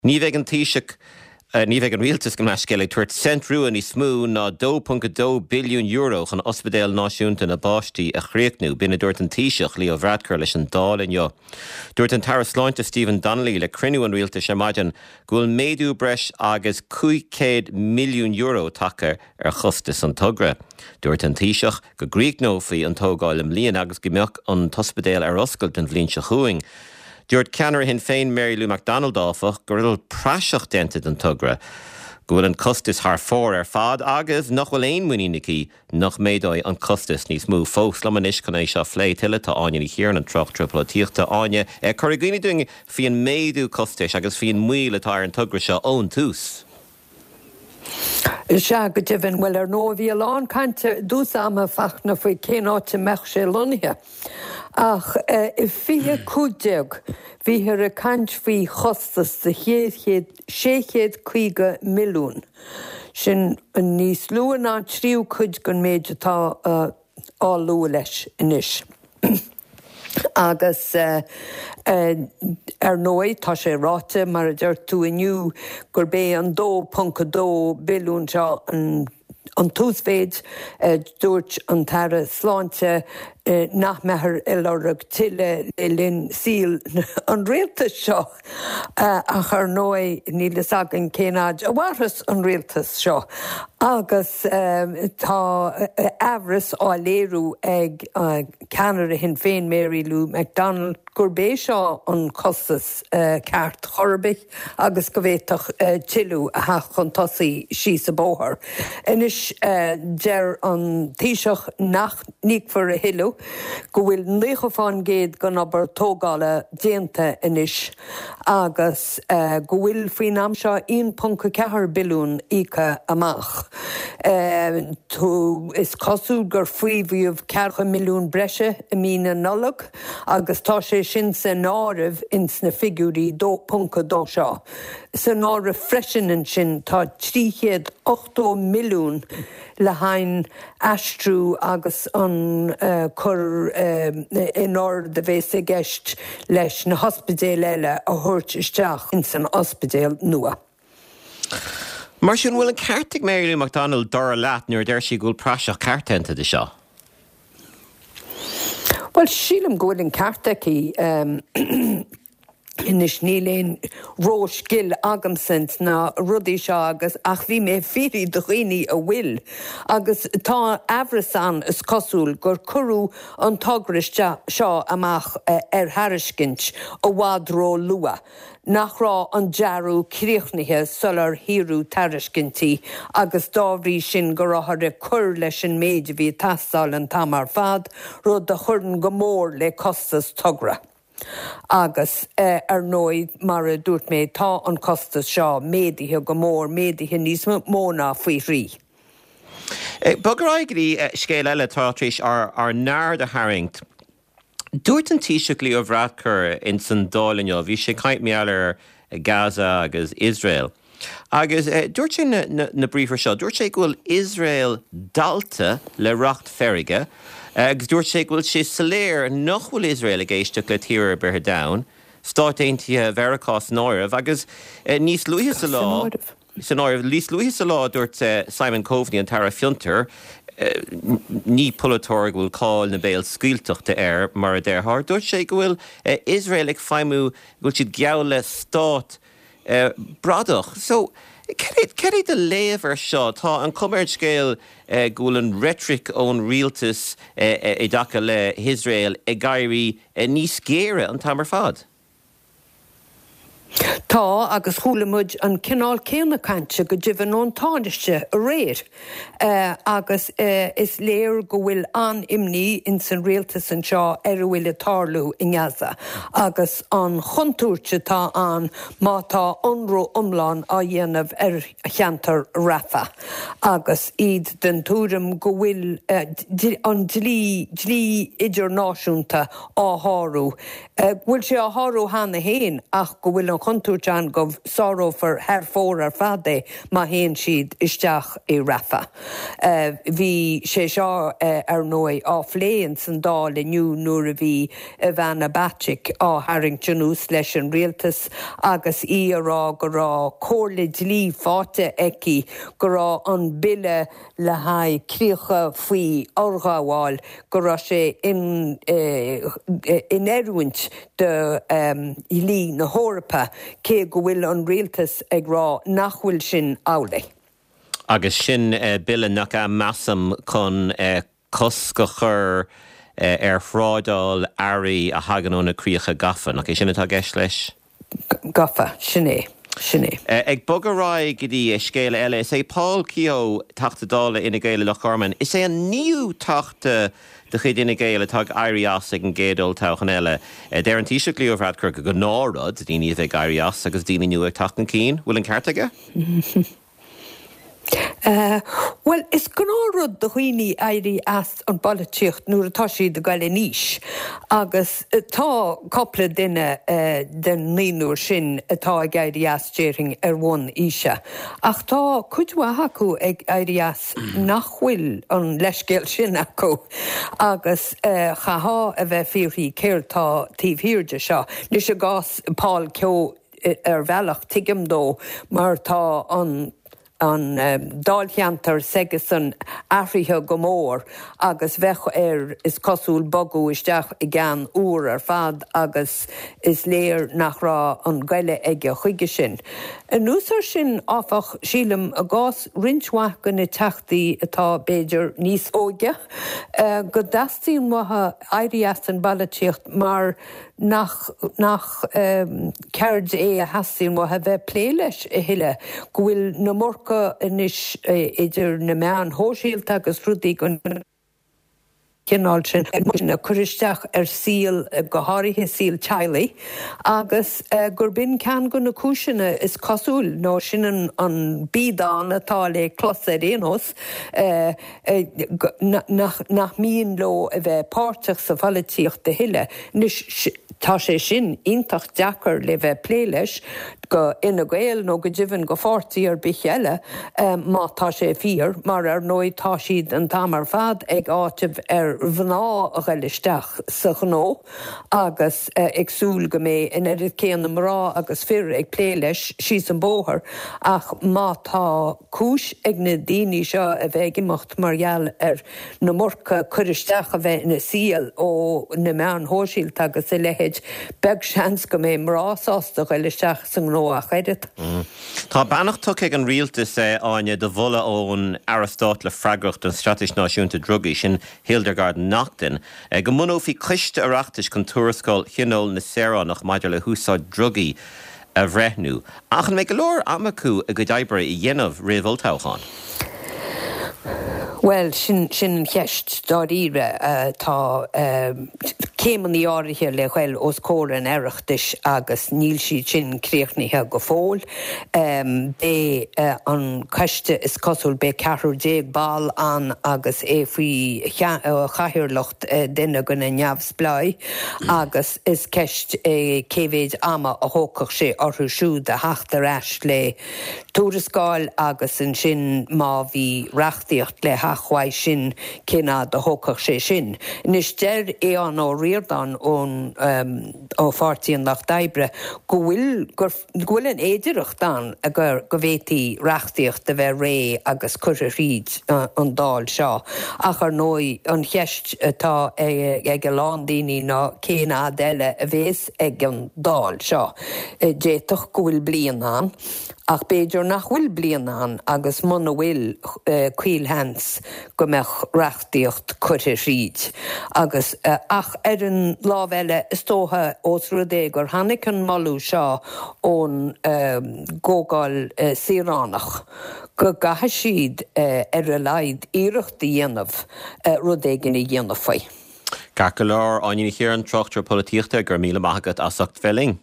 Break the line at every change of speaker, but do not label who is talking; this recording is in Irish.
Ní bheidh an Taoiseach, ní bheidh an Rialtas, gabh mo leithscéal, ag tabhairt cent rua níos mó ná €2.2 billiún chun Ospidéal Náisiúnta na bPáistí a chríochnú. B'in a dúirt an Taoiseach, Leo Varadkar leis an Dáil inniu. Dúirt an tAire Sláinte Stephen Donnelly le cruinniú an Rialtais ar maidin go bhfuil méadú breis agus €500 milliún tagtha ar chostas an togra. Dúirt an Taoiseach go gcríochnófaí an tógáil i mbliana agus go mbeadh an t-ospidéal ar oscailt an bhliain seo chugainn. Dúirt ceannaire Shinn Féin Mary Lou McDonald, áfach, go bhfuil praiseach déanta den togra, go bhfuil an costas thar fóir ar fad agus nach bhfuil aon muinín aici nach méadóidh an costas níos mó fós. Liom anois chun é seo a phlé tuilleadh tá Áine Ní Chiaráin, an tráchtaire polaitíochta. Áine, cuir i gcuimhne dúinn faoin méadú costais agus faoin moill atá ar an togra seo ón tús.
Sea, go deimhin. Bhuel, ar ndóigh, bhí a lán cainte i dtús ama, Fachtna, faoi cén áit a mbeadh sé lonnaithe. Ach i 2015, bhíthear ag caint faoi chostas de 650 milliún. Sin níos lú ná an tríú cuid den méid atá á lua leis anois. Agus ar ndóigh, tá sé ráite, mar a deir tú inniu, gurb é an 2.2 billiún seo an t-uasmhéid. Dúirt an tAire Sláinte nach mbeifear ag lorg tuilleadh le linn saoil an rialtais seo. Ach ar ndóigh, níl fhios againn cén fhaid a mhairfeas an rialtas seo agus tá aimhreas á léiriú ag ceannaire Shinn Féin, Mary Lou McDonald, gurb é seo an costas ceart chor ar bith agus go bhféadfadh tuilleadh a theacht chun tosaigh síos an bóthar. Anois, deir an Taoiseach nach n-íocfar a thuilleadh, go bhfuil 90 fán gcéad den obair tógála déanta anois agus go bhfuil faoin am seo 1.4 billiún íoctha amach. Is cosúil gur faomhadh 40 milliún breise i mí na Nollag agus tá sé sin san áireamh ins na figiúirí 2.2 seo. San áireamh freisin ansin tá 380 milliún le haghaidh aistriú agus an cur in ord a bhéas i gceist leis na hospidéil eile a thabhairt isteach ins an ospidéal nua.
Mar sin, an bhfuil an ceart ag Mary Lou McDonald, dar leat, nuair a deir sí go bhfuil praiseach ceart déanta de seo?
Bhuel, sílim go bhfuil an ceart aici. Anois níl aon ró-scil agamsa ins na rudaí seo agus ach bhí mé ag fiafraí de dhaoine a bhfuil agus tá aimhreas ann is cosúil gur cuireadh an togra seo amach ar thairiscint i bhfad ró-luath, nach raibh an dearadh críochnaithe sular hiarradh tairiscintí agus dá bhrí sin go rabhthar ag cur leis an méid a bhí ag teastáil an t-am ar fad, rud a chuireann go mór le costas togra. Agus, ar ndóigh, mar a dúirt mé, tá an costas seo méadaithe go mór, méadaithe níos mó ná faoi thrí.
Bog ar aghaidh go dtí scéal eile atá tar éis ár n-aird a tharraingt. Dúirt an Taoiseach Leo Varadkar ins an Dáil inniu, bhí sé ag caint mar gheall ar Gaza agus Iosrael, Agus dúirt sé na briathra seo, dúirt sé go bhfuil Iosrael dallta le racht feirge agus dúirt sé go bhfuil sé soiléir nach bhfuil Iosrael ag éisteacht le tír ar bith ar domhan, Stáit Aontaithe Mheiriceá san áireamh. Agus níos luaithe sa lá, san áireamh, níos luaithe sa lá dúirt Simon Coveney, an tAire Fiontair, ní polaiteoir go bhfuil cáil na béalscaoilteachta air, mar a déarfá, dúirt sé go bhfuil Iosrael ag feidhmiú, go bhfuil siad geall le stát bradach. So, cad é do léamh ar seo? Tá an chuma ar an scéal go bhfuil an reitric ón rialtas i dtaca le hIosrael ag éirí níos géire an t-am ar fad.
Tá, agus chuala muid an cineál céanna cainte go deimhin ón Tánaiste aréir. Agus is léir go bhfuil an-imní ins an rialtas anseo ar a bhfuil ag tarlú i nGaza agus an chontúirt atá ann má tá ionradh iomlán á dhéanamh ar cheantar Rafah agus iad den tuairim go bhfuil an dlí, dlí idirnáisiúnta á shárú, go bhfuil sé á shárú cheana féin ach go bhfuil an. chontúirt ann go sárófar thar fóir ar fad é má théann siad isteach i Rafah. Bhí sé seo, ar ndóigh, á phlé ins an Dáil inniu nuair a bhí Ivana Bacik á tharraingt anuas leis an rialtas agus í a rá go raibh comhairle dlí faighte aici go raibh an bille le haghaidh críocha faoi fhorghabháil, go raibh sé in oiriúint do dhlí na hEorpa, cé go bhfuil an rialtas ag rá nach bhfuil sin amhlaidh.
Agus sin bille nach ea, measaim, chun cosc a chur ar thrádáil earraí a thagann ó na críocha gafa, nach é sin atá i gceist leis?
Gafa, sin é, sin é.
Ag bogadh ar aghaidh go dtí scéal eile, is é Paul Kehoe, Teachta Dála Fhine Gael i Loch Garman, is é an naoú Teachta de chuid Fhine Gael atá ag éirí as ag an gcéad olltoghchán eile. Deir an Taoiseach Leo Varadkar gur gnáthrud daoine a bheith ag éirí as agus daoine nua ag teacht chun cinn. Bhfuil an ceart aige?
Bhuel, is gnáthrud do dhaoine éirí as an bpolaitíocht nuair atá siad ag goil in aois agus tá cupla duine den naonúr sin atá ag éirí as, déarfainn, ar bhonn aoise. Ach tá cuid mhaith acu ag éirí as nach bhfuil an leithscéal sin acu agus chaithfeá a bheith ag fiafraí céard tá taobh thiar de seo. Anois i gcás Paul Kehoe, ar bhealach, tuigim dó, mar tá an an dáilcheantar s'aigesan athraithe go mór agus bheadh air, is cosúil, bogadh isteach i gceann úr ar fad agus is léir nach raibh an goile aige chuige sin. Anuas air sin, áfach, sílim, i gcás roinnt mhaith de na teachtaí atá, b'fhéidir, níos óige, go dteastaíonn uathu éirí as an bpolaitíocht mar nach nach ceird é a theastaíonn uathu a bheith ag plé leis a thuilleadh, go bhfuil an iomarca anois idir na meáin shóisialta agus rudaí den chineál sin ag cur isteach ar saol, go háirithe saol teaghlaigh, agus gurb in ceann de na cúiseanna, is cosúil, nó sin an biadán atá le clos ar aon nós. nach mian leo a bheith páirteach sa pholaitíocht a thuilleadh. Anois, tá sé sin iontach deacair le bheith ag plé leis go Fhine Gael nó go deimhin go pháirtí ar bith eile, má tá sé fíor, mar ar ndóigh tá siad an t-am ar fad ag áiteamh ar mhná a ghoil isteach sa ghnó agus ag súil go mbeidh an oiread céanna mná agus fir ag plé leis síos an bóthar ach má tá cúis ag na daoine seo a bheith ag imeacht mar gheall ar an iomarca cur isteach a bheith ina saol ó na meáin shóisialta agus a leithéid, beag seans go mbeidh mná sásta dul isteach sa ngnó ach oiread.
Tá beannacht tugtha ag an Rialtas, Áine, do mholadh ón Aire Stáit le freagracht don Straitéis Náisiúnta Drugaí, sin Hildegarde Naughton, go mbunófaí coiste Oireachtais chun tuarascáil Thionól na Saoránach maidir le húsáid drugaí a bhreithniú. Ach an mbeidh go leor ama acu a gcuid oibre a dhéanamh roimh olltoghchán?
Bhuel, sin, sin an cheist dáiríre. Tá céimeanna áirithe le ghoil os comhair an Oireachtais agus níl siad sin críochnaithe go fóill. Beidh an coiste, is cosúil, beidh ceathrar déag ball ann agus é faoi chathaoirleacht duine de na neamhspleáigh agus is ceist é cé mhéid ama a thógfadh sé orthu siúd a theacht ar ais le tuarascáil agus ansin má bhí reachtaíocht le theacht uaidh sin cén fhad a thógfadh sé sin. Anois deir Aodhán Ó Ríordáin ón ó Pháirtí an Lucht Oibre go bhfuil gur go bhfuil an fhéidearthacht ann go go bhféadfaí reachtaíocht a bheith réidh agus curtha thríd an Dáil seo. Ach ar ndóigh, an cheist atá ag a lán daoine ná cén fhad eile a bhéas ag an Dáil seo. D'fhéadfadh go bhfuil bliain ann, ach b'fhéidir nach bhfuil bliain ann agus muna bhfuil, caolsheans go mbeadh reachtaíocht curtha thríd agus, ach ar an lámh eile, is dócha, ós rud é gur tháinig an moladh seo ón gComhdháil Saoránach, go gcaithfidh siad ar a laghad iarracht a dhéanamh rud éigin a dhéanamh faoi.
Ceart go leor, Áine Ní Chiaráin, tráchtaire polaitíochta, go raibh míle maith agat as ucht bheith linn.